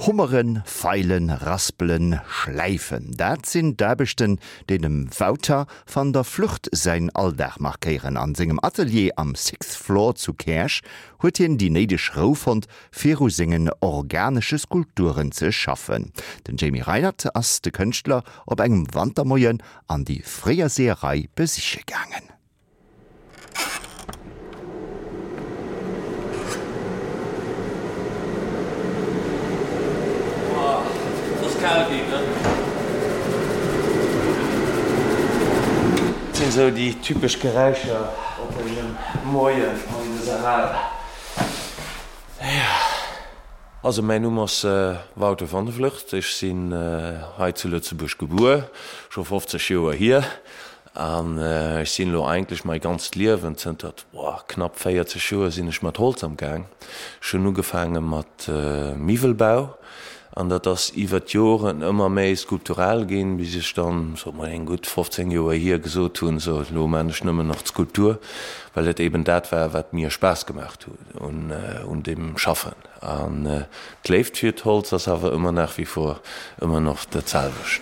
Hummeren, Feilen, Raspelen, Schläifen, dat sinn d'Aarbechten, déi dem Wouter van der Vlugt säin Alldag markéieren. An sengem Atelier am Sixth Floor zu Käerch huet hien déi néideg Rou fonnt, fir u sengen organesche Skulpturen ze schaffen. Den Jamie Reinert ass de Kënschtler op engem Wantermoien an déi fréier Seeërei besiche gaangen. Dat sinn esou déi typesch Geräischer op engem Moien an dëser Hal. Also mäin Numm ass Wouter van der Vlugt, ech sinn hei zu Lëtzebuerg gebuer, scho 50 Joer hier. An ech sinn elo eigentlech mai ganzt Liewen, zënter knapp 40 Joer sinn ech mat Holz am Gaang. Ech hunn ugefaange mat Miwwelbau an dat ass iwwer d'Joren ëmmer méi skulptural ginn, bis ech dann, soe mer eng gutt 15 Joer hier, gesot hunn, sou elo maan ech nëmmen nach d'Skulptur, well et eben dat war, wat mir Spaass gemaach huet un deem Schaffen. An d'Léift fir d'Holz ass awer ëmmer nach wie vor ëmmer nach dat selwecht.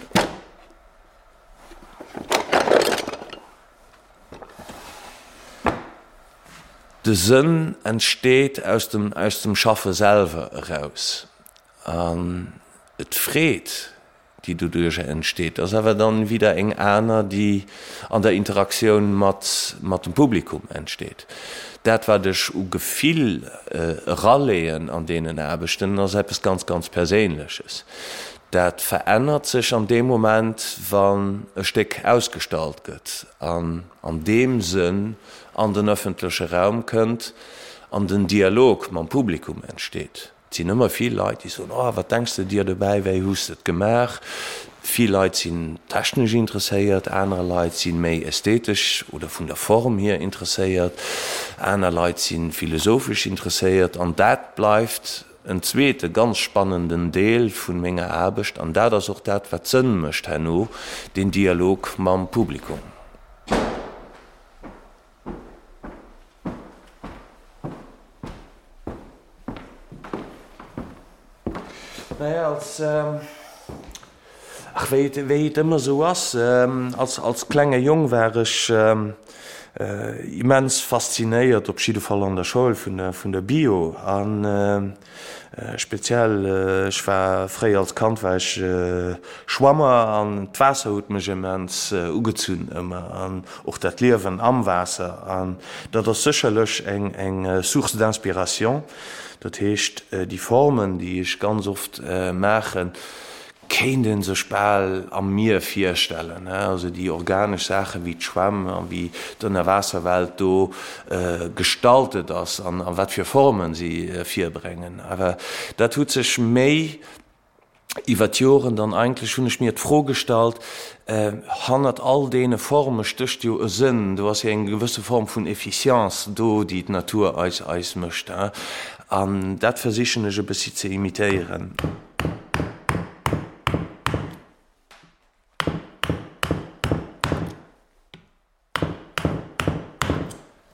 De Sënn entsteet aus dem aus dem Schaffe selwer eraus an d'Freed, déi doduercher entsteet, ass awer dann wieder eng aner, déi an der Interaktioun mat mat dem Publikum entsteet. Dat wat ech u Gefill eraleeën an deenen Aarbechten, ass eppes ganz ganz Perséinleches. Dat verännert sech an deem Moment, wann e Stéck ausgestallt gëtt an an deem Sënn an den ëffentleche Raum kënnt an den Dialog mam Publikum entsteet. Et sinn ëmmer vill Leit, déi soen, Oh, wat denks de dir dobäi, wéi hues de et gemaach? Vill Leit sinn technesch interesséiert, aner Leit si méi ästhetesch oder vun der Form hier interesséiert, aner Leit si philosophesch interesséiert an dat bleift En zweete ganz spannenden Deel vun menger Aarbecht, an dat ass och dat wat Sënn mécht herno, deen Dialog mam Publikum. Naja, als, ach wéi et, wéi et ëmmer esou ass, als, als klenge Jong war ech immens faszinéiert, op jidde Fall an der Schoul, vun der, vun der Bio a speziell, ech war fréier als Kand war ech Schwammer an d'Waasser huet mech immens ugezunn ëmmer an och dat Liewen am Waasser an dat ass sécherlech eng, eng Source d'inspiration. Dat heescht, déi Formen, déi ech ganz oft maachen, kéint ee sech bal am Mier virstellen. Also déi organesch Saachen, wéi d'Schwämm a wéi d'Ënnerwaasserwelt do gestaltet ass an a wat fir Formen si virbréngen. Awer dat huet sech méi Iwwer d'Joren dann eigentlech hunn ech mir d'Fro gestallt, Hannert all deene Forme stécht jo e Sënn, do ass jo eng gewësse Form vun Efficience do, déi d'Natur eis eis mécht. An dat versichen ech e bëssi ze imitéieren.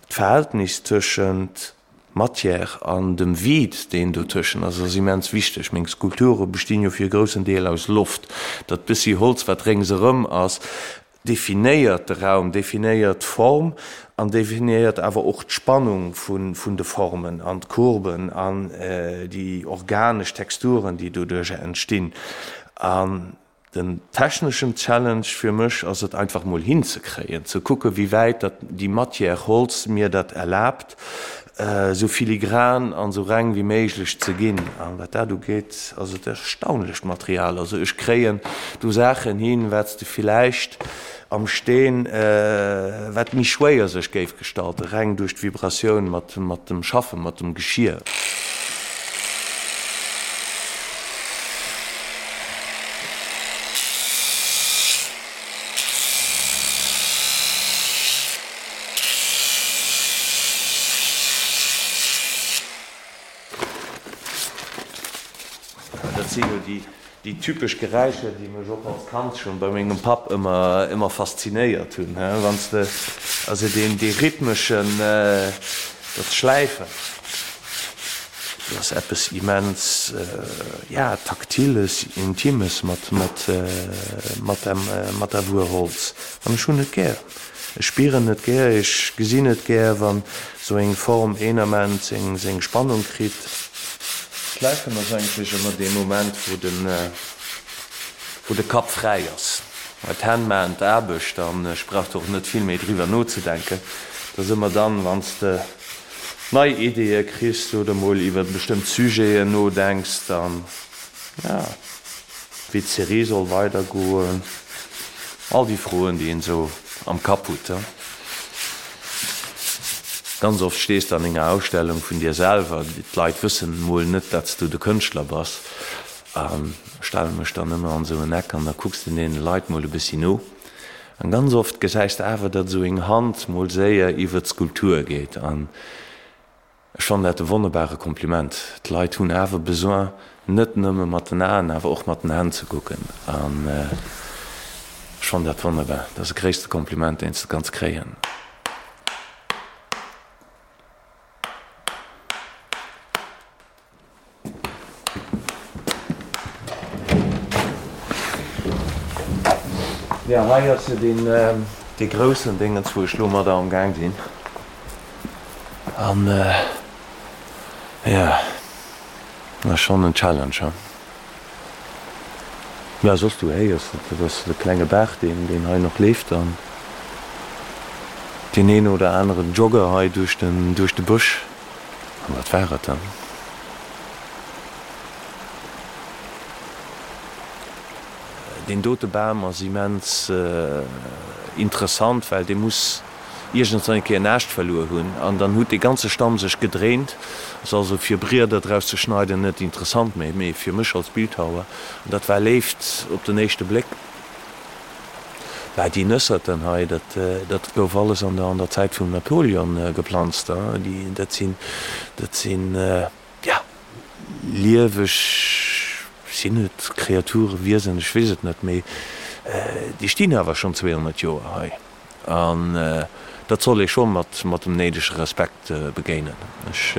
D'Verhältnis tëschent Matière an dem Vide, deen dotëschen ass, ass immens wichteg. Meng Skulpture bestinn jo fir e groussen Deel aus Loft. Dat bëssi Holz, wat réngserëm ass, definéiert de Raum, definéiert d'Form an definéiert awer och d'Spannung vun de Formen an d'Courben an déi organesch Texturen, déi doduercher entstinn. An Den techneschen Challenge fir mech ass et einfach mol hinzekréien, ze kucke wéi wäit dat déi Matière Holz mir dat erlaabt, esou filigran an esou reng wéi méiglech ze ginn. An wat dat ugeet ass et erstaunlecht Material. Also ech kréien do Saachen hin, wat s de villäicht am Steen, wat méi schwéier sech géif gestalten, reng duerch d'Vibratioun mat dem Schaffen, mat dem Geschier. Dat si jo déi Déi typesch Geräischer, déi mech och als Kand schon bei mengem Papp ëmmer ëmmer faszinéiert hunn, he, wann s de also deen dee rhythmeschen, dat Schläifen. Et ass eppes immens, ja, Taktiles, Intimes mat, mat, mat dem, mat der Wuer Holz. An ech hunn et gär. Ech spieren et gär, ech gesinn et gär, wann esou eng Form een Ament seng, seng Spannung kritt. Schläifen ass eigentlech ëmmer dee Moment, wou den, wou de Kapp fräi ass. Well d'Hänn maachen d'Aarbecht an ech brauch do och net vill méi driwwer nozedenken. Et ass ëmmer dann, wann s de nei Ideeë kriss oder mol iwwer bestëmmt Sujeten nodenks, dann, ja, wéi d'Serie soll weidergoen, all déi Froen, déi een esou am Kapp hutt. Ganz oft stees de an enger Ausstellung vun dir selwer, d'Leit wëssen mol net, datt s du de Kënschtler bass. An stelle mech dann ëmmer an esou en Eck an da kucks de deene Leit mol e bëssi no. An ganz oft gesäis de awer, datt esou eng Hand mol séier iwwer d'Skulptur geet. An ech fannen dat e wonnerbare Kompliment. D'Leit hunn awer Besoin, net nëmme mat den Aen, awer och mat den Hänn ze kucken. An ech fannen dat wonnerbar. Dat ass de gréisste Kompliment, deen s de kanns kréien. Jo, hei ass jo deen, dee groussen Déngens, wou ech lo mat am Gaang sinn. An jo, dat ass schonn en Challenge, he. Jo, soss du héiers et, dat ass de klenge Baach, deen, deen hei nach leeft an deen een oder aneren Jogger hei duerch den, duerch de Bësch. An dat war et dann. Deen dote Bam ass immens interessant, well dee muss iergendwann eng Kéier en Aascht verluer hunn an dann huet dee ganze Stamm sech gedréint. Ass also fir Brieder draus ze schneiden net interessant méi, mee fir mech als Bildhauer, an dat war Léift op den éischte Bléck. Bah, déi Nësserten hei, dat, dat gouf alles an der, an der Zäit vum Napoleon geplanzt, déi, dat sinn, dat sinn, ja, lieweg, sinn et Kreaturen, Wiesen, ech weess et net, mee déi stinn awer schonn 200 Joer hei. An dat soll ee scho mat mat dem néidege Respekt begéinen. Ech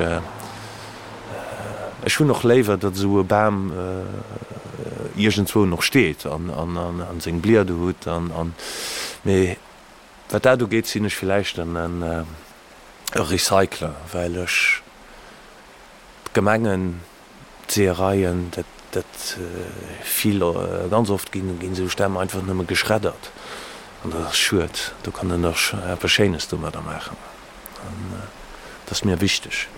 ech hunn och léiwer, datt esou e Bam iergendzwou nach steet an an seng Blieder hutt an an mee wat dat ugeet, sinn ech villäicht en e Recycler, well ech d'Gemengen D'Seeëreien, dat, dat vill, ganz oft ginn, ginn esou Stämm einfach nëmme geschreddert. An dat ass schued. Do kann een dach eppes Schéines domadder maachen. An dat ass mir wichteg.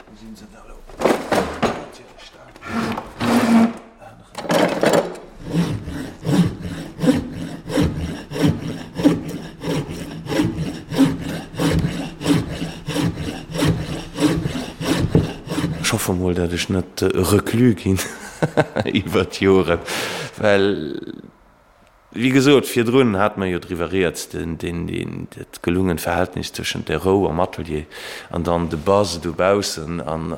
Wou sinn se da lo? Natierlech da aneren. Ech hoffe mol, dat ech net Reclus ginn iwwer d'Joren, well Wéi gesot, virdrun hate mer jo driwwer rieds, dat gelungent Verhältnis tëschent der Rou am Atelier an dann de Buzz dobaussen an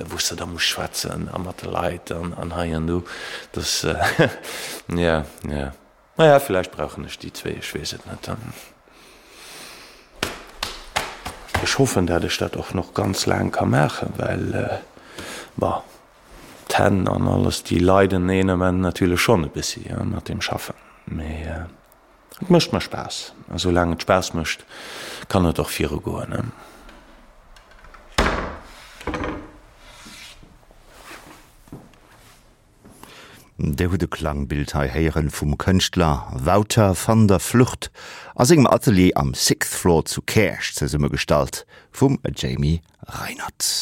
wou s de da muss schwätzen a mat de Leit an hei an do. Dass, jo, jo. Naja, villäicht brauchen ech déi zwéi, ech weess et net. Ech hoffen, dat ech dat och nach ganz laang ka maachen, well, bon, D'Hänn an alles, déi leiden een Ament natierlech schonn e bëssi mat deem Schaffen, mee et mécht mer Spaass a soulaang et Spaass mécht, kann et och viru goen. Dir hutt e Klangbild hei héieren vum Kënschtler Wouter van der Vlugt a sengem Atelier am Sixth Floor zu Käerch, zesummegestallt vum Jamie Reinert.